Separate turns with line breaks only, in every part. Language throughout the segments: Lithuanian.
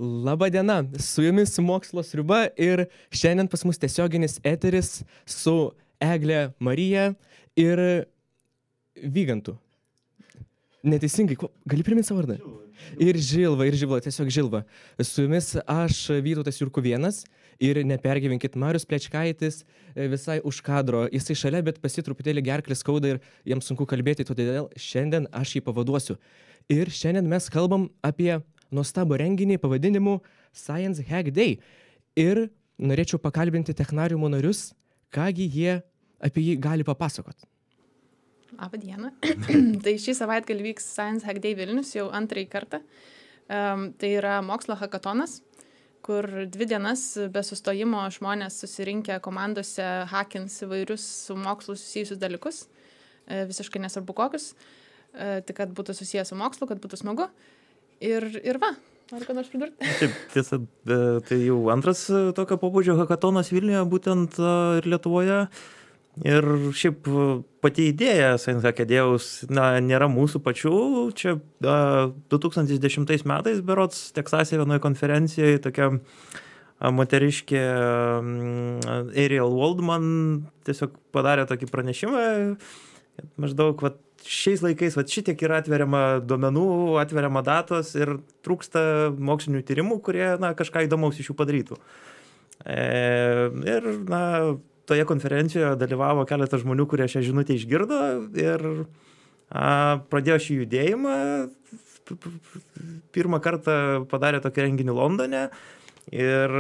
Labadiena, su jumis Mokslo sriuba ir šiandien pas mus tiesioginis eteris su Egle Marija ir Vygantu. Neteisingai, gali priminti savo vardą? Ir Žilva, tiesiog Žilva. Su jumis aš, Vytautas Jurkuvėnas, ir nepergyvenkit, Marius Plečkaitis visai už kadro. Jisai šalia, bet pas jį truputėlį gerklės skauda ir jam sunku kalbėti, todėl šiandien aš jį pavaduosiu. Ir šiandien mes kalbam apie nuostabų renginį pavadinimu Science Hack Day. Ir norėčiau pakalbinti technariumo narius, kągi jie apie jį gali papasakot.
Labą dieną. Tai šį savaitgalį vyks Science Hack Day Vilnius jau antrąjį kartą. Tai yra mokslo hakatonas, kur 2 dienas be sustojimo žmonės susirinkę komandose hakins įvairius su mokslu susijusius dalykus. Visiškai nesvarbu kokius. Tik kad būtų susijęs su mokslu, kad būtų smagu. Ir va, noriu ką nors pridurti.
Taip, tiesa, tai jau antras tokio pobūdžio hakatonas Vilniuje, būtent ir Lietuvoje. Ir šiaip pati idėja Science Hack Day'aus nėra mūsų pačių. Čia 2010 metais berods Teksase vienoje konferencijoje tokia moteriškė Ariel Waldman tiesiog padarė tokį pranešimą, maždaug šiais laikais šitiek yra atveriama duomenų, atveriama datos ir trūksta mokslinių tyrimų, kurie kažką įdomaus iš jų padarytų. Ir toje konferencijoje dalyvavo keletas žmonių, kurie šią žinutę išgirdo ir pradėjo šį judėjimą. Pirmą kartą padarė tokį renginį Londone ir,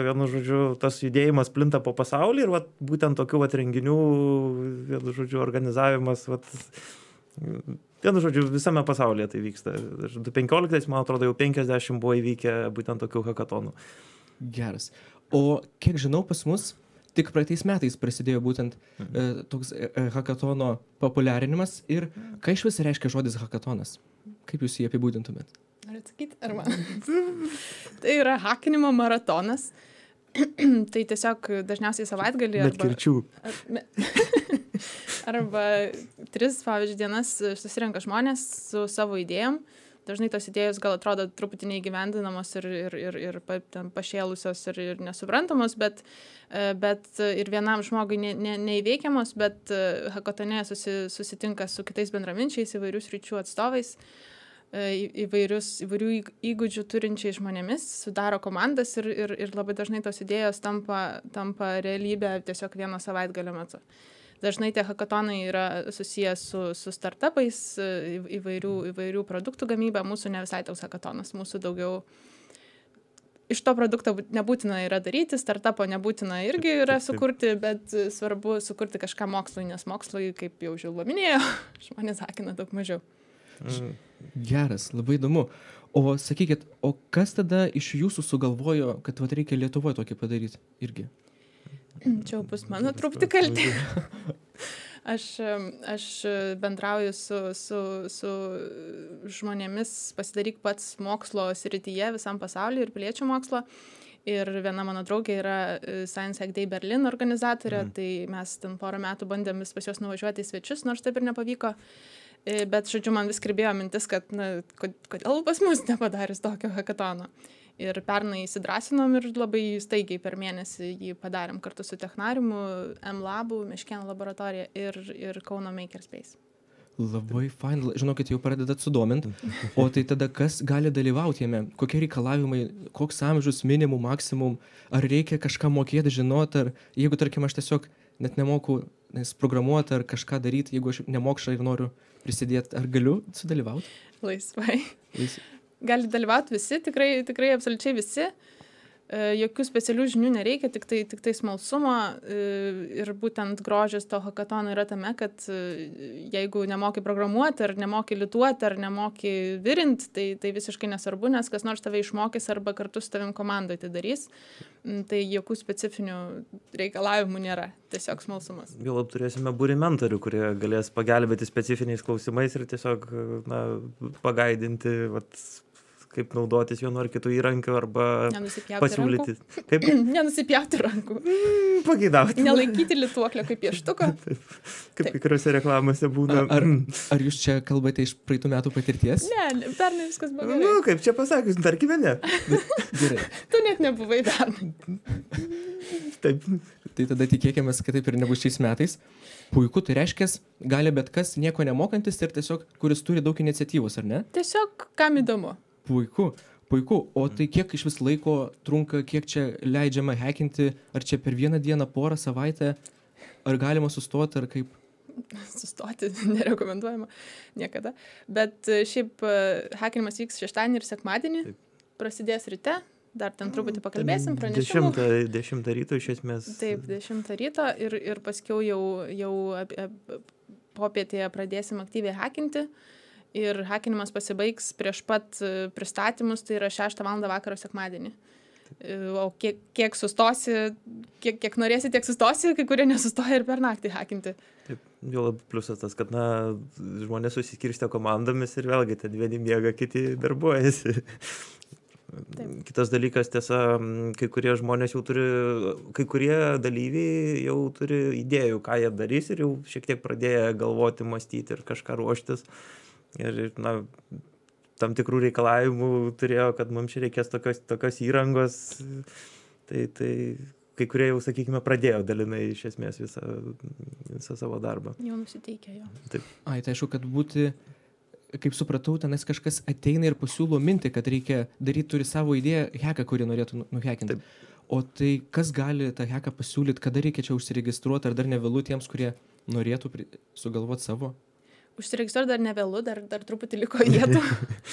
vienu žodžiu, tas judėjimas plinta po pasaulį ir būtent tokių renginių, vienu žodžiu, organizavimas, vienu žodžiu, visame pasaulyje tai vyksta. 2015, man atrodo, jau 50 buvo įvykę būtent tokių hakatonų.
Geras. O kiek žinau, pas mus tik praeitais metais prasidėjo būtent toks hakatono populiarinimas. Ir ką iš vis reiškia žodis hakatonas? Kaip jūs jį apibūdintumėt?
Noriu atsakyti, ar man? Tai yra hakinimo maratonas. Tai tiesiog dažniausiai savaitgalį
Bet kirčių.
Arba 3, pavyzdžiui, dienas susirenka žmonės su savo idėjom. Dažnai tos idėjos gal atrodo truputį neįgyvendinamos ir pašėlusios ir nesuprantamos, bet ir vienam žmogui neįveikiamos, bet hakatone susitinka su kitais bendraminčiais, įvairių sričių atstovais, įvairių įgūdžių turinčiais žmonėmis, sudaro komandas ir labai dažnai tos idėjos tampa realybė tiesiog vieno savaitgalio metu. Dažnai tie hakatonai yra susijęs su startupais, įvairių produktų gamyba. Mūsų ne visai toks hakatonas, mūsų daugiau iš to produkto nebūtina yra daryti, startupo nebūtina irgi yra sukurti, bet svarbu sukurti kažką mokslui, nes mokslui, kaip jau Žilva minėjo, žmonės hakina daug mažiau.
Geras, labai įdomu. O sakykit, o kas tada iš jūsų sugalvojo, kad reikia Lietuvoje tokį padaryti irgi?
Čia bus mano truputį kaltė. Aš bendrauju su žmonėmis, pasidaryk pats mokslo srityje visam pasauliu ir piliečių mokslo. Ir viena mano draugė yra Science Hack Day Berlin organizatorė, tai mes ten porą metų bandėm pas juos nuvažiuoti į svečius, nors taip ir nepavyko. Bet, žodžiu, man vis kirbėjo mintis, kad kodėl pas mus nepadarius tokio hakatono. Ir pernai įsidrąsinom ir labai staigiai per mėnesį jį padarėm kartu su Technariumu, M-Labu, Meškėnų laboratorija ir Kauno Makerspace.
Labai fain, žinokit, jau pradedat sudomint. O tai tada kas gali dalyvauti jame? Kokie reikalavimai, koks amžius, minimum, maksimum? Ar reikia kažką mokėti, žinoti? Ar jeigu, tarkim, aš tiesiog net nemoku programuoti ar kažką daryti, jeigu aš nemokšą ir noriu prisidėti, ar galiu sudalyvauti?
Laisvai. Gali dalyvauti visi, tikrai absoliučiai visi. Jokių specialių žinių nereikia, tik tai smalsumo. Ir būtent grožis to hakatono yra tame, kad jeigu nemoki programuoti, ar nemoki lituoti, ar nemoki virinti, tai visiškai nesvarbu, nes kas nors tave išmokys arba kartu su tavim komandoje tai darys. Tai jokių specifinių reikalavimų nėra, tiesiog smalsumas.
Vėl turėsime būrį mentorių, kurie galės pagelbėti specifiniais klausimais ir tiesiog pagaidinti kaip naudotis vienu ar kitu įrankiu arba
Nenusipjauti
pasiūlyti. Kaip
Nenusipjauti rankų.
pageidauti.
Nelaikyti lituoklio kaip pieštuko.
Kaip kai kuriuose reklamose būna.
Ar jūs čia kalbate iš praeitų metų patirties?
Ne, pernai viskas buvo gerai.
Nu, kaip čia pasakius, tarkime ne.
Gerai.
Tu net nebuvai pernai.
Taip.
Tai tada tikėkime, kad taip ir nebus šiais metais. Puiku, tai reiškia, gali bet kas nieko nemokantis ir tiesiog, kuris turi daug iniciatyvos, ar ne?
Tiesiog, kam įdomu.
Puiku, puiku. O tai kiek iš vis laiko trunka, kiek čia leidžiama hackinti, ar čia per vieną dieną, porą savaitę, ar galima sustoti, ar kaip?
Sustoti nerekomenduojama niekada. Bet šiaip hackinimas vyks šeštadienį ir sekmadienį. Prasidės ryte. Dar ten truputį pakalbėsim, pranešimų.
10 ryto iš esmės.
Taip, 10 ryto ir paskiau jau popietėje pradėsim aktyviai hackinti. Ir hackinimas pasibaigs prieš pat pristatymus, tai yra 6 val. Vakaro sekmadienį. O kiek sustosi, kiek norėsi, tiek sustosi, kai kurie nesustoja ir per naktį hackinti.
Taip, jau labai pliusas tas, kad žmonės susikirstė komandomis ir vėlgi ten vieni miega, kiti darbuojasi. Taip. Kitas dalykas, tiesa, kai kurie žmonės jau turi, kai kurie dalyviai jau turi idėjų, ką jie darys ir jau šiek tiek pradėjo galvoti, mąstyti ir kažką ruoštis. Ir, tam tikrų reikalavimų turėjo, kad mums čia reikės tokios įrangos. Tai kai kurie jau, sakykime, pradėjo dalinai iš esmės visą savo darbą.
Jau nusiteikė jo.
Taip.
Tai aišku, kad būti... Kaip supratau, tenais kažkas ateina ir pasiūlo mintį, kad reikia daryti, turi savo idėją, hacką, kurį norėtų nuhackinti. O tai kas gali tą hacką pasiūlyti, kada reikia čia užsiregistruoti, ar dar nevėlu tiems, kurie norėtų sugalvoti savo?
Užsiregistruoti dar nevėlu, dar truputį liko vietų.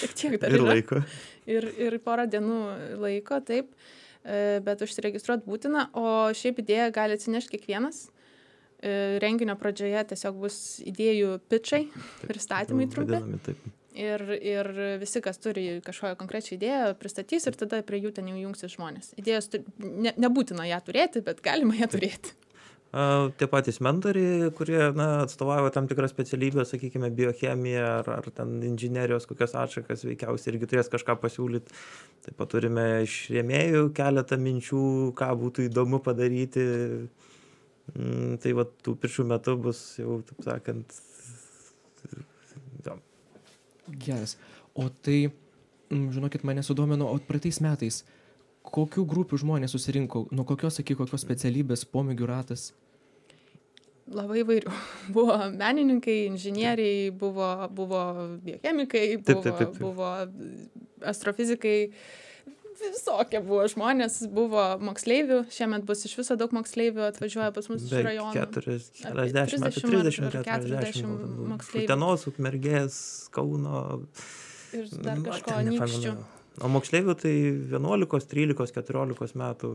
Šiek tiek dar
ir
yra.
laiko.
Ir porą dienų laiko, taip. Bet užsiregistruoti būtina, o šiaip idėją gali atsinešti kiekvienas. Renginio pradžioje tiesiog bus idėjų pitchai, pristatymai trumpi. Ir visi, kas turi kažkokią konkrečią idėją, pristatys ir tada prie jų ten jau jungsis žmonės. Idėjos nebūtina ją turėti, bet galima ją turėti.
Tie patys mentoriai, kurie atstovauja tam tikrą specialybę, sakykime, biochemiją ar ten inžinerijos kokias atšakas, veikiausiai irgi turės kažką pasiūlyti. Taip pat turime iš rėmėjų keletą minčių, ką būtų įdomu padaryti. Tai va, tų piršų metų bus jau, taip sakant,
Geras. O tai, žinokit, mane sudomino, o praeitais metais, kokių grupių žmonės susirinko, nuo kokios iki kokios specialybės, pomėgių ratas?
Labai įvairių. Buvo menininkai, inžinieriai, buvo biochemikai, buvo astrofizikai. Visokie buvo žmonės, buvo moksleivių, šiemet bus iš viso daug moksleivių, atvažiuoja pas mus iš rajonų. 40 moksleivių.
Utenos, Ukmergės, Kauno.
Ir dar kažko anykščių.
O moksleivių tai 11, 13, 14 metų,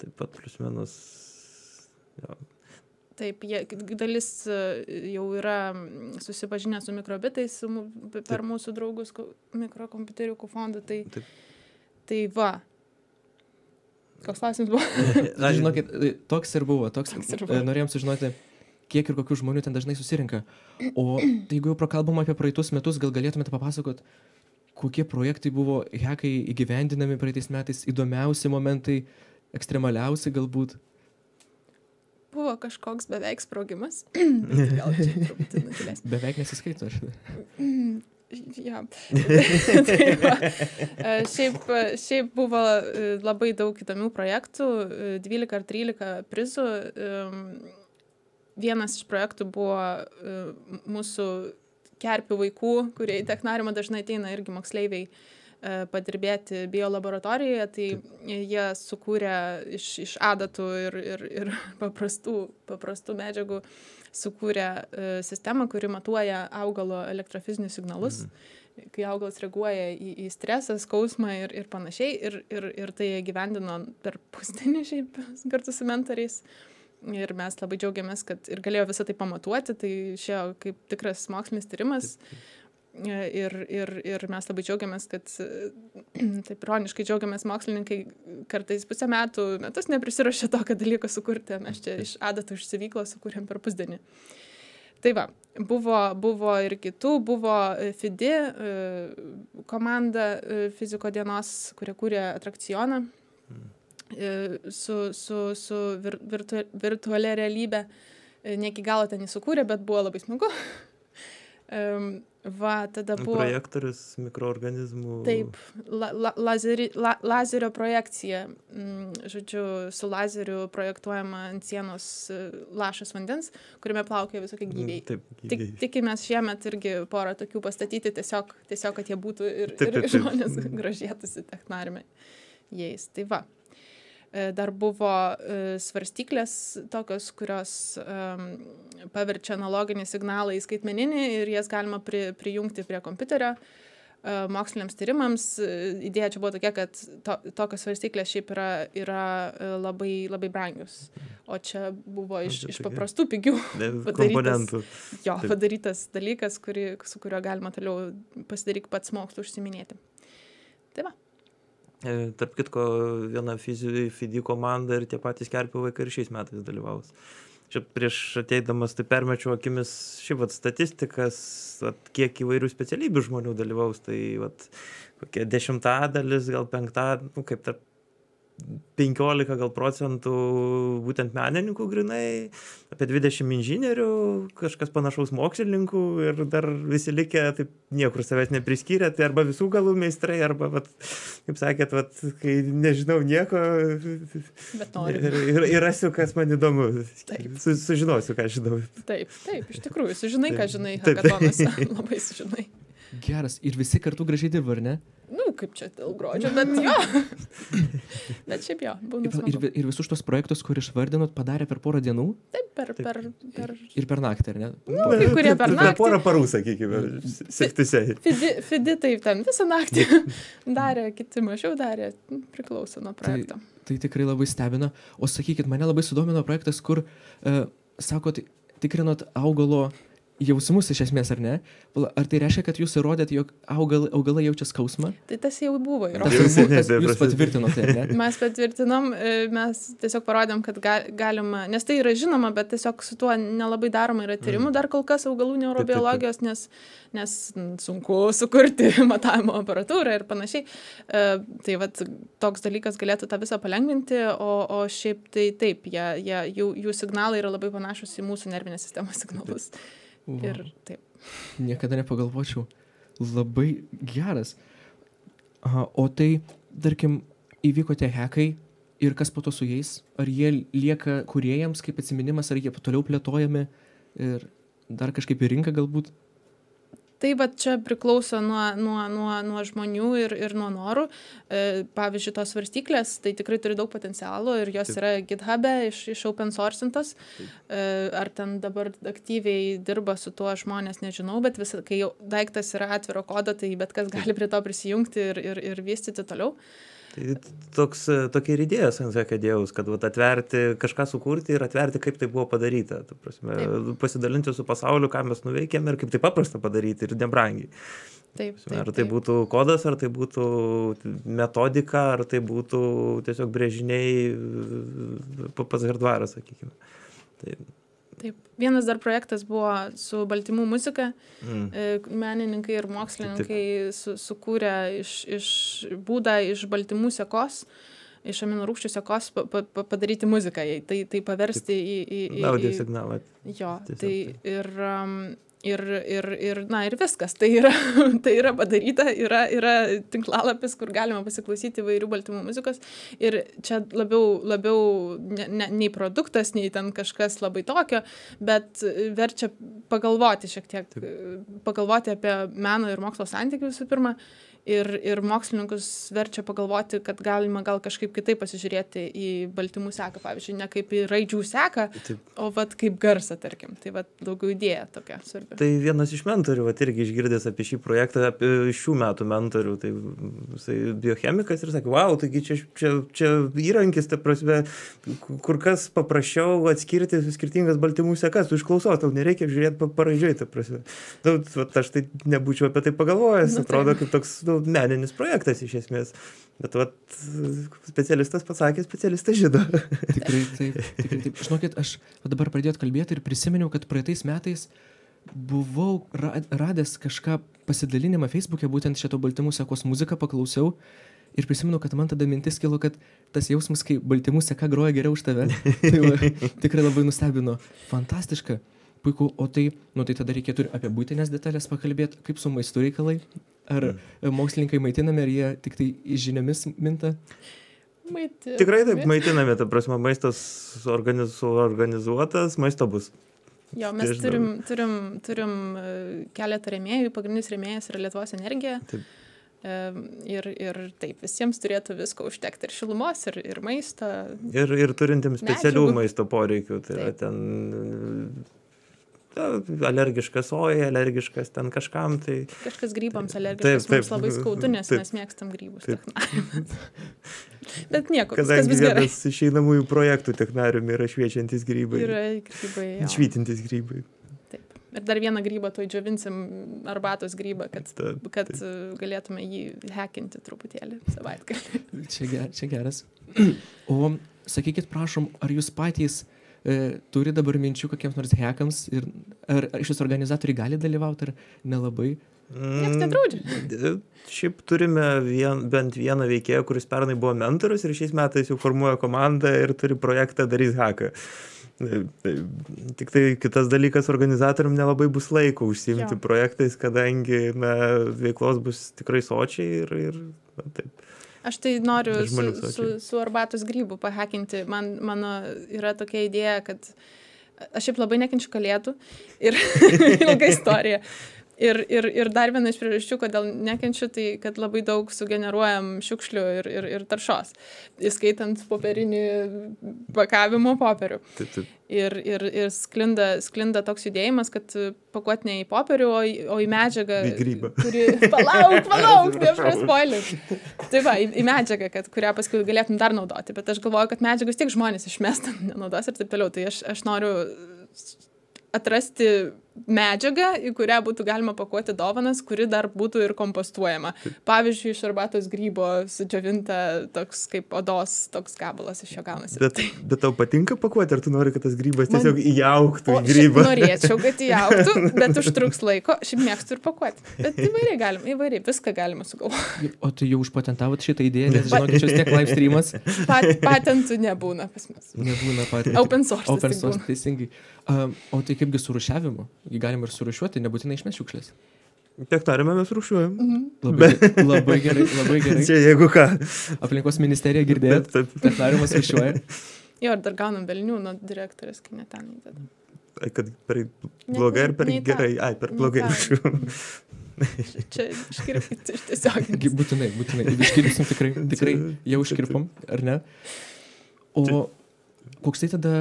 taip pat plius minus. Jo.
Taip, dalis jau yra susipažinę su mikrobitais per mūsų draugus mikrokompiuteriukų fondą. Tai va. Koks klausimas buvo?
Žinokit, toks ir buvo. Norėjom sužinoti, kiek ir kokių žmonių ten dažnai susirinka. O tai jeigu jau prakalbam apie praeitus metus, gal galėtumėte papasakot, kokie projektai buvo hackai įgyvendinami praeitais metais, įdomiausi momentai, ekstremaliausi galbūt?
Buvo kažkoks beveik sprogimas. Gal čia truputį nutilės.
Beveik nesiskaito.
Ja. Šiaip buvo labai daug įdomių projektų, 12 ar 13 prizų. Vienas iš projektų buvo mūsų kerpių vaikų, kurie į technariumą dažnai ateina irgi moksleiviai padirbėti biolaboratorijoje, tai jie sukūrė iš adatų ir paprastų medžiagų sukūrė sistemą, kuri matuoja augalo elektrofizinius signalus, kai augalas reaguoja į stresą, skausmą ir panašiai, ir tai gyvendino per pusdienį šiaip kartu su mentoriais. Ir mes labai džiaugiamės, kad ir galėjo visą tai pamatuoti, tai šio kaip tikras mokslinis tyrimas. Ir mes labai džiaugiamės, kad taip ironiškai džiaugiamės mokslininkai kartais pusę metus neprisirašė tokio dalyko sukurti. Mes čia iš adatų iš sivyklos sukūrėm per pusdienį. Tai va, buvo ir kitų, buvo FIDI komanda fiziko dienos, kurie kūrė atrakcioną su virtualia realybė. Ne iki galo ten įsukūrė, bet buvo labai smagu. Tada buvo...
Projektorius mikroorganizmų.
Taip, lazerio projekcija. Žodžiu, su lazeriu projektuojama ant sienos lašas vandens, kuriame plaukia visokie gyviai.
Taip,
Tikimės šiemet irgi porą tokių pastatyti, tiesiog kad jie būtų ir žmonės gražėtųsi technariume jais. Tai va. Dar buvo svarstyklės tokios, kurios paverčia analoginį signalą į skaitmeninį ir jas galima prijungti prie kompiuterio moksliniams tyrimams. Idėja čia buvo tokia, kad tokios svarstyklės šiaip yra labai, labai brangios. O čia buvo iš paprastų pigių padarytas dalykas, su kuriuo galima toliau pasidaryti pats mokslu užsiminėti. Tai va.
Tarp kitko, viena FIDI komanda ir tie patys Kerpių vaikai ir šiais metais dalyvaus. Čia prieš ateidamas tai permečiau akimis statistikas, kiek įvairių specialybių žmonių dalyvaus. Tai kokia 10%, gal 5%, kaip tarp 15 gal procentų būtent menininkų grinai, apie 20 inžinierių, kažkas panašaus mokslininkų ir dar visi likę taip niekur savęs nepriskyrė, tai arba visų galų meistrai, arba, kaip sakėt, kai nežinau nieko ir rasiu, kas man įdomu. Sužinosiu, ką žinau.
Taip, iš tikrųjų, sužinai, ką žinai, hakatonuose, labai sužinai.
Geras, ir visi kartu gražiai dirba, ar ne?
Kaip čia dėl gruodžio, bet jo. Bet šiaip jo, būna smagu.
Ir visus tos projektus, kur išvardinot, padarė per porą dienų?
Taip, per...
Ir per naktį, ar ne?
Kai kurie per naktį.
Per porą parų, sakykime, septisei.
FIDI taip, ten visą naktį darė, kiti mažiau darė, priklauso nuo projekto.
Tai tikrai labai stebina. O sakykit, mane labai sudomino projektas, kur, sakot, tikrinot augalo jausmus iš esmės, ar ne? Ar tai reiškia, kad jūs įrodėt, jog augalai jaučia skausmą?
Tai tas jau buvo įrodytas.
Jūs patvirtinote, ar ne?
Mes patvirtinom, mes tiesiog parodėm, kad galima, nes tai yra žinoma, bet tiesiog su tuo nelabai daroma yra tyrimų dar kol kas augalų neurobiologijos, nes sunku sukurti matavimo aparatūrą ir panašiai. Tai toks dalykas galėtų tą visą palengvinti, o šiaip tai taip, jų signalai yra labai panašus į mūsų nervinės sistemos signalus. Ir taip.
Niekada nepagalvočiau. Labai geras. O tai, tarkim, įvyko tie hekai ir kas po to su jais? Ar jie lieka kūrėjams kaip atsiminimas, ar jie toliau plėtojami ir dar kažkaip į rinką galbūt?
Tai čia priklauso nuo žmonių ir nuo norų. Pavyzdžiui, tos svarstyklės, tai tikrai turi daug potencialo ir jos yra GitHub'e iš open sourcintos. Ar ten dabar aktyviai dirba su tuo žmonės, nežinau, bet kai jau daiktas yra atviro kodo, tai bet kas gali prie to prisijungti ir vystyti toliau.
Tai tokia ir idėja Science Acadėjaus, kad atverti, kažką sukurti ir atverti, kaip tai buvo padaryta. Pasidalinti su pasauliu, ką mes nuveikėme ir kaip tai paprasta padaryti ir nebrangiai. Ar tai būtų kodas, ar tai būtų metodika, ar tai būtų tiesiog brėžiniai pats hardvaras, sakykime.
Taip. Vienas dar projektas buvo su baltymų muzika. Menininkai ir mokslininkai sukūrė būdą iš baltymų sekos, iš aminorūgščių sekos padaryti muziką, tai paversti į
audio signalą.
Jo, tai ir viskas. Tai yra padaryta, yra tinklalapis, kur galima pasiklausyti įvairių baltymų muzikos. Ir čia labiau nei produktas, nei ten kažkas labai tokio, bet verčia pagalvoti šiek tiek, pagalvoti apie meno ir mokslo santykių visų pirma. Ir mokslininkus verčia pagalvoti, kad galima gal kažkaip kitaip pasižiūrėti į baltymų seką, pavyzdžiui, ne kaip į raidžių seką, o kaip garsą, tarkim. Tai daugiau idėja tokia svarbi.
Tai vienas iš mentorių, irgi išgirdęs apie šį projektą, apie šių metų mentorių, tai jisai biochemikas ir sakė, wow, taigi čia įrankis, ta prasme, kur kas paprasčiau atskirti skirtingas baltymų sekas, tu išklausos, tau nereikia žiūrėti paraidžiui, ta prasme. Aš tai nebūčiau apie tai pagalvojęs, atrodo kaip toks meninis projektas iš esmės. Bet vat, specialistas pasakė, specialistas žino.
Tikrai taip. Žinokit, aš dabar pradėjot kalbėti ir prisiminiau, kad praeitais metais buvau radęs kažką pasidalinimą Facebook'e, būtent šito baltymų sekos muziką paklausiau ir prisimenu, kad man tada mintis kilo, kad tas jausmas, kai baltymų seka groja geriau už tave, tai tikrai labai nustebino. Fantastiška, puiku, o tai tada reikėtų ir apie būtinės detalės pakalbėti, kaip su maistu reikalai, ar mokslininkai maitinami, ar jie tik tai žiniomis minta?
Tikrai taip maitinami, ta prasme, maistas organizuotas, maisto bus.
Jo, mes turim keletą rėmėjų, pagrindinis rėmėjas yra Lietuvos energija.
Taip.
Ir taip, visiems turėtų visko užtekti, ir šilumos, ir maisto.
Ir turintiems specialių
medžiagų.
maisto poreikių, tai yra ten alergiškas sojai, alergiškas ten kažkam, tai...
Kažkas grybams alergiškas, mums labai skaudu, nes mes mėgstam grybus technarium. Bet nieko, viskas bus gerai.
Kadangi vienas išeinamųjų projektų technarium yra šviečiantis grybai.
Yra grybai, jo.
Švytintis grybai.
Taip. Ir dar vieną grybą tuoj džiovinsim, arbatos grybą, kad galėtume jį hekinti truputėlį savaitgalį.
Čia geras. O sakykit, prašom, ar jūs patys turi dabar minčių kokiems nors hekams ir ar šis organizatoriai gali dalyvauti ar nelabai?
Niekas nedraudžia.
Šiaip turime bent vieną veikėją, kuris pernai buvo mentorius ir šiais metais jau formuoja komandą ir turi projektą Darys haką. Tik tai kitas dalykas, organizatorium nelabai bus laiko užsiimti projektais, kadangi veiklos bus tikrai sočiai ir taip.
Aš tai noriu su arbatos grybų pahekinti. Mano yra tokia idėja, kad aš šiaip labai nekenčiu kalėdų ir ilga istorija. Ir dar viena iš priežasčių, kodėl nekenčiu, tai kad labai daug sugeneruojam šiukšlių ir taršos, įskaitant popierinį pakavimo popierių. Ir sklinda toks judėjimas, kad pakuot ne į popierių, o į medžiagą, kuri... Palauk, nepraspoilint. Tai va, į medžiagą, kurią paskui galėtum dar naudoti. Bet aš galvoju, kad medžiagus tiek žmonės išmesta, nenaudos ir taip toliau. Tai aš noriu atrasti medžiagą, į kurią būtų galima pakuoti dovanas, kuri dar būtų ir kompostuojama. Pavyzdžiui, iš arbatos grybo sudžiovinta toks kaip odos, toks gabalas iš jo gaunasi.
Bet tau patinka pakuoti, ar tu nori, kad tas grybas tiesiog įaugtų į grybą?
Norėčiau, kad įaugtų, bet užtruks laiko. Šiaip mėgstu ir pakuoti. Bet įvairiai viską galima sugalvoti.
O tu jau užpatentavot šitą idėją, nes žinokit, čia tiek live streamas.
Patentų nebūna pas mus.
Nebūna patentų.
Open source,
teisingai. O tai kaipgi su rūšiavimu? Galima ir surūšiuoti, nebūtinai išmest šiukšlės.
Technariume mes rūšiuojam.
Labai gerai.
Čia jeigu ką.
Aplinkos ministerija girdėjot, technariumas rūšiuoja.
Jo, ir dar gaunam velnių nuo direktorės, kai ne ten įdeda.
Kad per blogai ar per gerai? Ai, per blogai rūšiuojam.
Čia iškirpti iš tiesiog.
Būtinai. Iškirpsim tikrai jau iškirpom, ar ne? O koks tai tada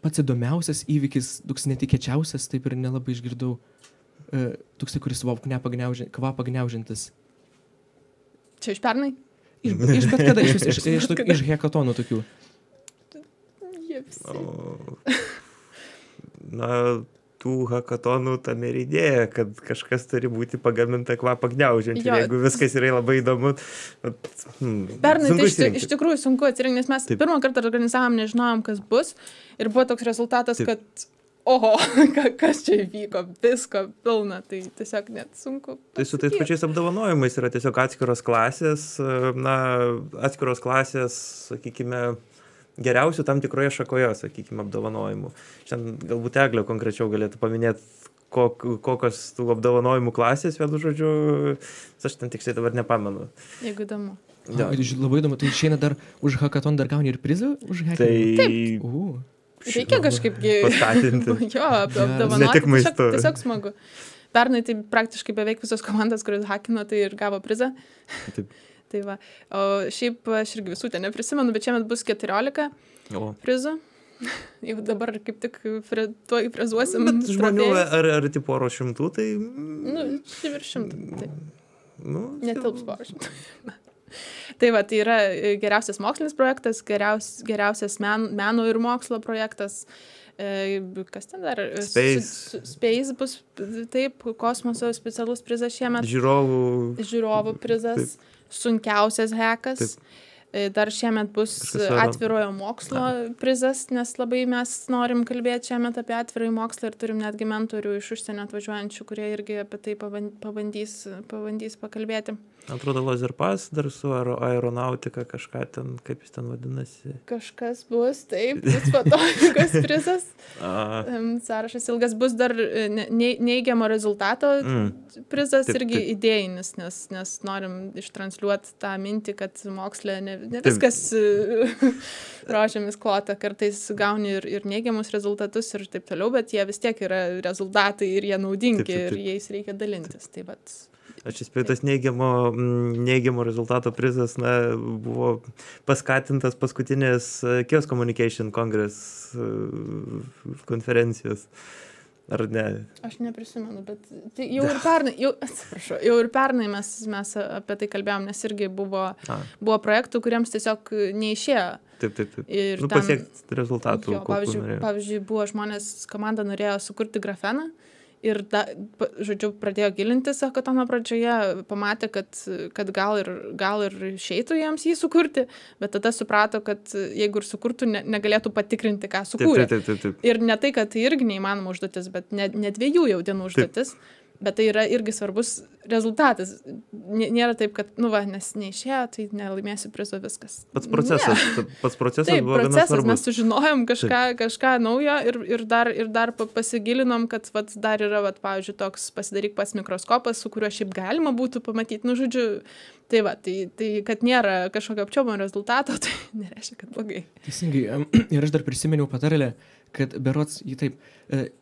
pats įdomiausias įvykis, toks netikėčiausias, taip ir nelabai išgirdau, toks, kuris kvapą gniaužiantis.
Čia iš pernai?
Iš bet kada, iš hekatonų tokių.
Jie visi.
Tų hakatonų tam ir idėja, kad kažkas turi būti pagaminta kvapą gniaužiant. Ir jeigu viskas yra labai įdomu...
Pernai tai iš tikrųjų sunku atsirinkti, nes mes pirmą kartą organizavom, nežinojom, kas bus. Ir buvo toks rezultatas, kad oho, kas čia įvyko, visko pilna. Tai tiesiog net sunku.
Tai su tais pačiais apdovanojimais yra tiesiog atskiros klasės, sakykime, geriausių tam tikroje šakoje, sakykime, apdovanojimų. Šiandien galbūt Eglė konkrečiau galėtų paminėti, kokios tų apdovanojimų klasės, vienu žodžiu, aš ten tiksliai dabar nepamenu.
Jeigu įdomu.
Labai įdomu, tai išeina dar už hakaton dar gauni ir prizą už hacking?
Taip. Reikia kažkaip
paskatinti.
Jo, apdovanoti, tiesiog smagu. Pernai tai praktiškai beveik visos komandos, kurios hakino, tai ir gavo prizą.
Taip.
Tai va. O šiaip aš irgi visų ten neprisimenu, bet šiemet bus 14 prizų. Jau dabar kaip tik tuoj frezuosim.
Bet žmonių ar tipo poro šimtų, tai...
Virš šimtų. Netilps poro šimtų. Tai va, tai yra geriausias mokslinis projektas, geriausias meno ir mokslo projektas, Kas ten dar?
Space.
Space bus, taip, kosmoso specialus prizas šiemet.
Žiūrovų
prizas, sunkiausias hekas. Taip. Dar šiemet bus atvirojo mokslo prizas, nes labai mes norim kalbėti šiemet apie atvirąjį mokslą ir turim netgi mentorių iš užsienio atvažiuojančių, kurie irgi apie tai pabandys pakalbėti.
Atrodo, Lazerpas dar su aeronautika kažką ten, kaip jis ten vadinasi.
Kažkas bus, taip, bus fotonikos prizas. Sąrašas ilgas, bus dar neigiamo rezultato prizas, taip, irgi taip. Idėjinis, nes norim ištransliuoti tą mintį, kad moksle ne viskas rožėmis klota, kartais gauni ir neigiamus rezultatus ir taip toliau, bet jie vis tiek yra rezultatai ir jie naudingi taip. Ir jais reikia dalintis. Tai vat,
aš įspėjau, neigiamo rezultato prizas buvo paskatintas paskutinės Chaos Communication Congress konferencijos. Ar ne? Aš
neprisimenu, bet tai jau ir pernai mes apie tai kalbėjom, nes irgi buvo projektų, kuriems tiesiog neišėjo.
Taip. Ir pasiekti rezultatų.
Pavyzdžiui, buvo žmonės, komanda norėjo sukurti grafeną. Ir, žodžiu, pradėjo gilintis hackathano pradžioje, pamatė, kad gal ir išeitų jiems jį sukurti, bet tada suprato, kad jeigu ir sukurtų, negalėtų patikrinti, ką sukūrė.
Taip.
Ir ne tai, kad tai irgi neįmanoma užduotis, bet ne 2 jau dienų užduotis. Taip. Bet tai yra irgi svarbus rezultatas. Nėra taip, kad, nes neišėjo, tai nelaimėsiu prizo viskas.
Pats procesas
taip,
buvo gana svarbus.
Mes sužinojom kažką naujo ir dar pasigilinom, kad dar yra, pavyzdžiui, toks pasidaryk pats mikroskopas, su kuriuo šiaip galima būtų pamatyti. Žodžiu, tai kad nėra kažkokio apčiuopiamo rezultato, tai nereiškia, kad blogai.
Teisingai. Ir aš dar prisiminiau patarlę, kad berods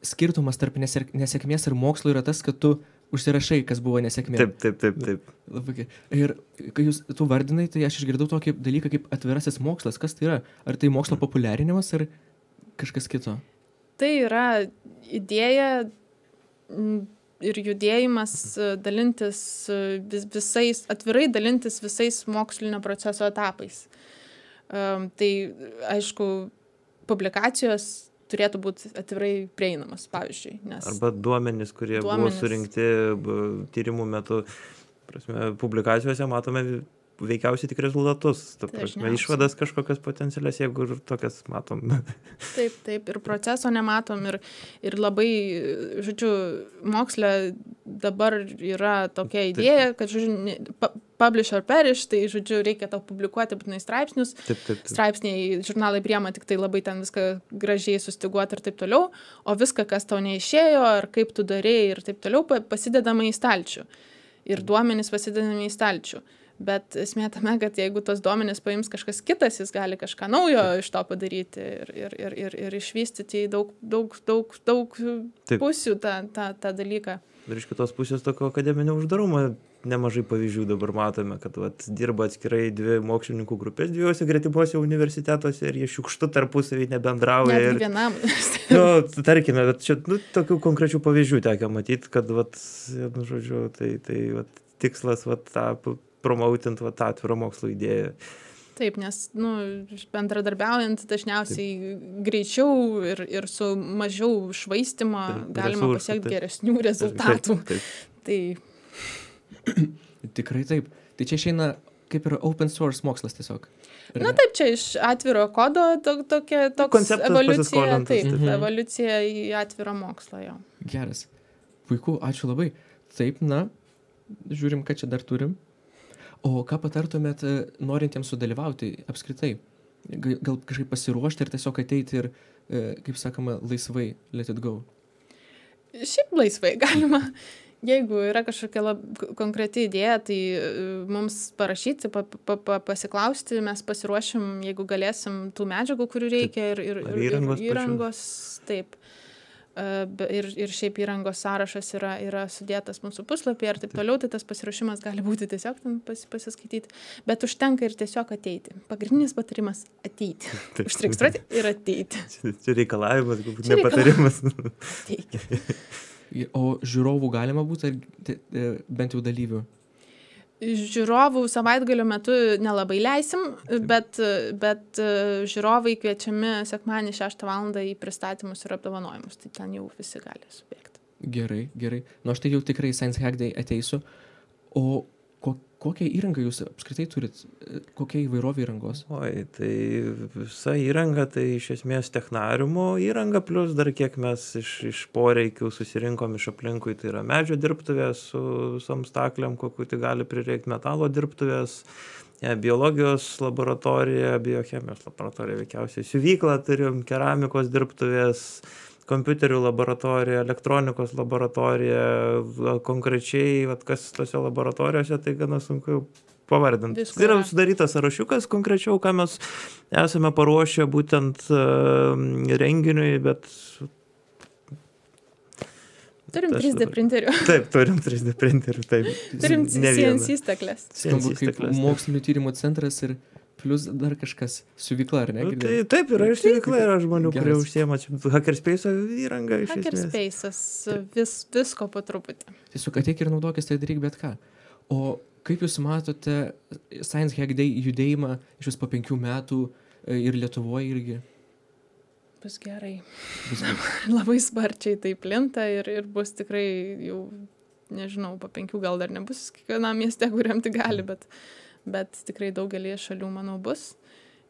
skirtumas tarp nesėkmės ir mokslo yra tas, kad tu užsirašai, kas buvo nesėkmė.
Taip.
Labai. Ir kai tu vardinai, tai aš išgirdau tokį dalyką kaip atvirasis mokslas. Kas tai yra? Ar tai mokslo populiarinimas ar kažkas kito?
Tai yra idėja ir judėjimas dalintis atvirai dalintis visais mokslinio proceso etapais. Tai, aišku, publikacijos turėtų būti atvirai prieinamas, pavyzdžiui.
Arba duomenys, kurie buvo surinkti tyrimų metu. Publikacijose matome veikiausiai tik rezultatus. Išvadas kažkokias potencialias, jeigu ir tokias matom.
Taip. Ir proceso nematom. Ir labai, žodžiu, moksle dabar yra tokia idėja, kad, žodžiu, publish or perish, tai, žodžiu, reikia tau publikuoti būtinai straipsnius.
Taip.
Straipsniai, žurnalai priema tik tai labai ten viską gražiai sustiguoti ir taip toliau, o viską, kas tau neišėjo, ar kaip tu darėjai ir taip toliau, pasidedama į stalčių. Ir duomenys pasidedami į stalčių. Bet esmė tame, kad jeigu tos duomenys paims kažkas kitas, jis gali kažką naujo iš to padaryti ir išvystyti į daug pusių tą dalyką.
Ir iš kitos pusės tokio akademinio uždarumo nemažai pavyzdžių dabar matome, kad dirba atskirai 2 mokslininkų grupės 2 gretimuose universitetuose ir jie šiukštu tarpusavį nebendrauja.
Net vienam universitetui.
Tarkime, bet čia tokių konkrečių pavyzdžių tekia matyti, kad žodžiu, tai tikslas tą promautinti tą atvirą mokslo idėją.
Taip, nes bendradarbiaujant dažniausiai greičiau ir su mažiau švaistymo galima pasiekti geresnių rezultatų.
Taip.
Tikrai taip. Tai čia išeina kaip ir open source mokslas tiesiog.
Taip, čia iš atviro kodo toks evoliucija, evoliucija į atvirą mokslą jo.
Geras. Puiku, ačiū labai. Taip, žiūrim, ką čia dar turim. O ką patartumėt norintiems sudalyvauti apskritai? Gal kažkaip pasiruošti ir tiesiog ateiti ir, kaip sakoma, laisvai let it go?
Šiaip laisvai galima. Jeigu yra kažkokia konkreti idėja, tai mums parašyti, pasiklausti, mes pasiruošim, jeigu galėsim tų medžiagų, kurių reikia ir įrangos. Taip. Ir šiaip įrangos sąrašas yra sudėtas mūsų puslapyje ir taip toliau, tai tas pasiruošimas gali būti tiesiog pasiskaityti, bet užtenka ir tiesiog ateiti. Pagrindinis patarimas – ateiti. Užsiregistruoti ir ateiti.
Čia reikalavimas, galbūt ne patarimas.
Ateikit.
O žiūrovų galima būti, bent jau dalyvių?
Žiūrovų savaitgalio metu nelabai leisim, bet žiūrovai kviečiami sekmadienį 6 valandą į pristatymus ir apdovanojimus, tai ten jau visi gali subėgti.
Gerai. Nu, aš tai jau tikrai Science Hack Day ateisiu. O kokią įrangą jūs apskritai turit? Kokia įvairovė įrangos?
Oi, tai visa įranga, tai iš esmės technariumo įranga, plus dar kiek mes iš poreikių susirinkom iš aplinkui, tai yra medžio dirbtuvės su visom staklėm, kokiu tai gali prireikti, metalo dirbtuvės, biologijos laboratorija, biochemijos laboratorija veikiausiai, siuvyklą turim, keramikos dirbtuvės, kompiuterių laboratorija, elektronikos laboratorija, konkrečiai, kas tose laboratorijose, tai gana sunku pavardinti. Tai yra sudarytas sąrašiukas konkrečiau, ką mes esame paruošę būtent renginiui, bet...
Turim 3D printerių.
Taip, turim 3D printerių, taip.
Turim CNC staklės.
Skambu kaip mokslinio tyrimų centras ir plus dar kažkas, siuvykla, ar ne?
Tai, taip, yra ir siuvykla, yra žmonių, kurie užsiema Hackerspace'o įrangą iš esmės.
Hackerspace'as, visko po truputį.
Tiesiog ateik ir naudokis, tai daryk bet ką. O kaip jūs matote Science Hack Day judėjimą iš vis po 5 metų ir Lietuvoje irgi?
Bus gerai. Labai sparčiai tai plinta ir bus tikrai jau, nežinau, po 5 gal dar nebus kiekvienam mieste, kuriam tai gali, bet tikrai daugelį šalių, manau, bus.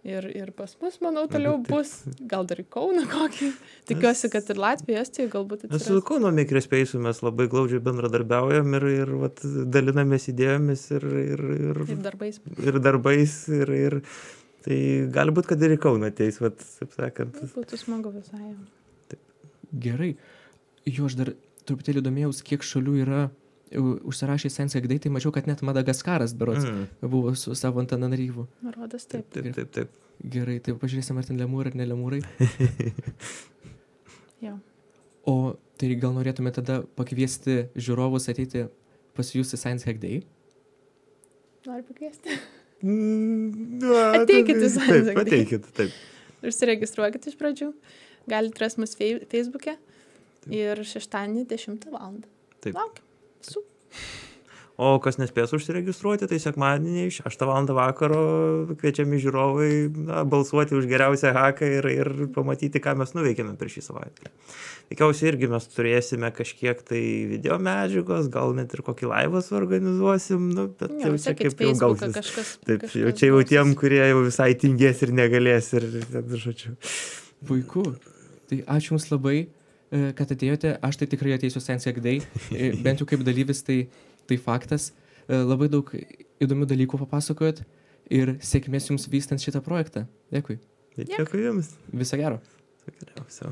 Ir pas mus, manau, toliau bus. Gal dar į Kauną kokį. Tikiuosi, kad ir Latvija, Estija galbūt atsiras.
Su Kauno Makerspace'u mes labai glaudžiai bendradarbiaujam ir dalinamės idėjomis ir
darbais.
Ir tai gali būt, kad ir į Kauną ateis, taip sakant.
Būtų smagu visai.
Taip.
Gerai. Jo, aš dar truputėlį domėjaus, kiek šalių yra užsirašė Science Hack Day, tai mačiau, kad net Madagaskaras berods buvo su savo Antananarivu.
Rodas taip.
Taip.
Gerai, tai pažiūrėsim, ar ten lemūrai ar ne lemūrai.
Jo.
O tai gal norėtume tada pakviesti žiūrovus ateiti pas jūs į Science Hack Day?
Noriu pakviesti. Ateikit į Science Hack Day.
Ateikit, taip.
Užsiregistruokit iš pradžių. Galite rasti mus Facebook'e ir šeštadienį 10 valandą.
Taip.
Laukiam.
O kas nespės užsiregistruoti, tai sekmadienį 6 valandą vakaro kviečiami žiūrovai balsuoti už geriausią haką ir pamatyti, ką mes nuveikėme per šį savaitę. Tikiausiai irgi mes turėsime kažkiek tai video medžiagos, gal net ir kokį laivą suorganizuosim, bet jau čia kaip jau gausis. Taip, jau čia jau tiem, kurie jau visai tingės ir negalės ir žodžiu.
Puiku. Tai ačiū Jums labai, kad atėjote. Aš tai tikrai ateisiu Science Hack Day, bent jau kaip dalyvis, tai faktas. Labai daug įdomių dalykų papasakojot ir sėkmės Jums vystant šitą projektą. Dėkui.
Dėkui Jums.
Viso gero.
Viso geriausio.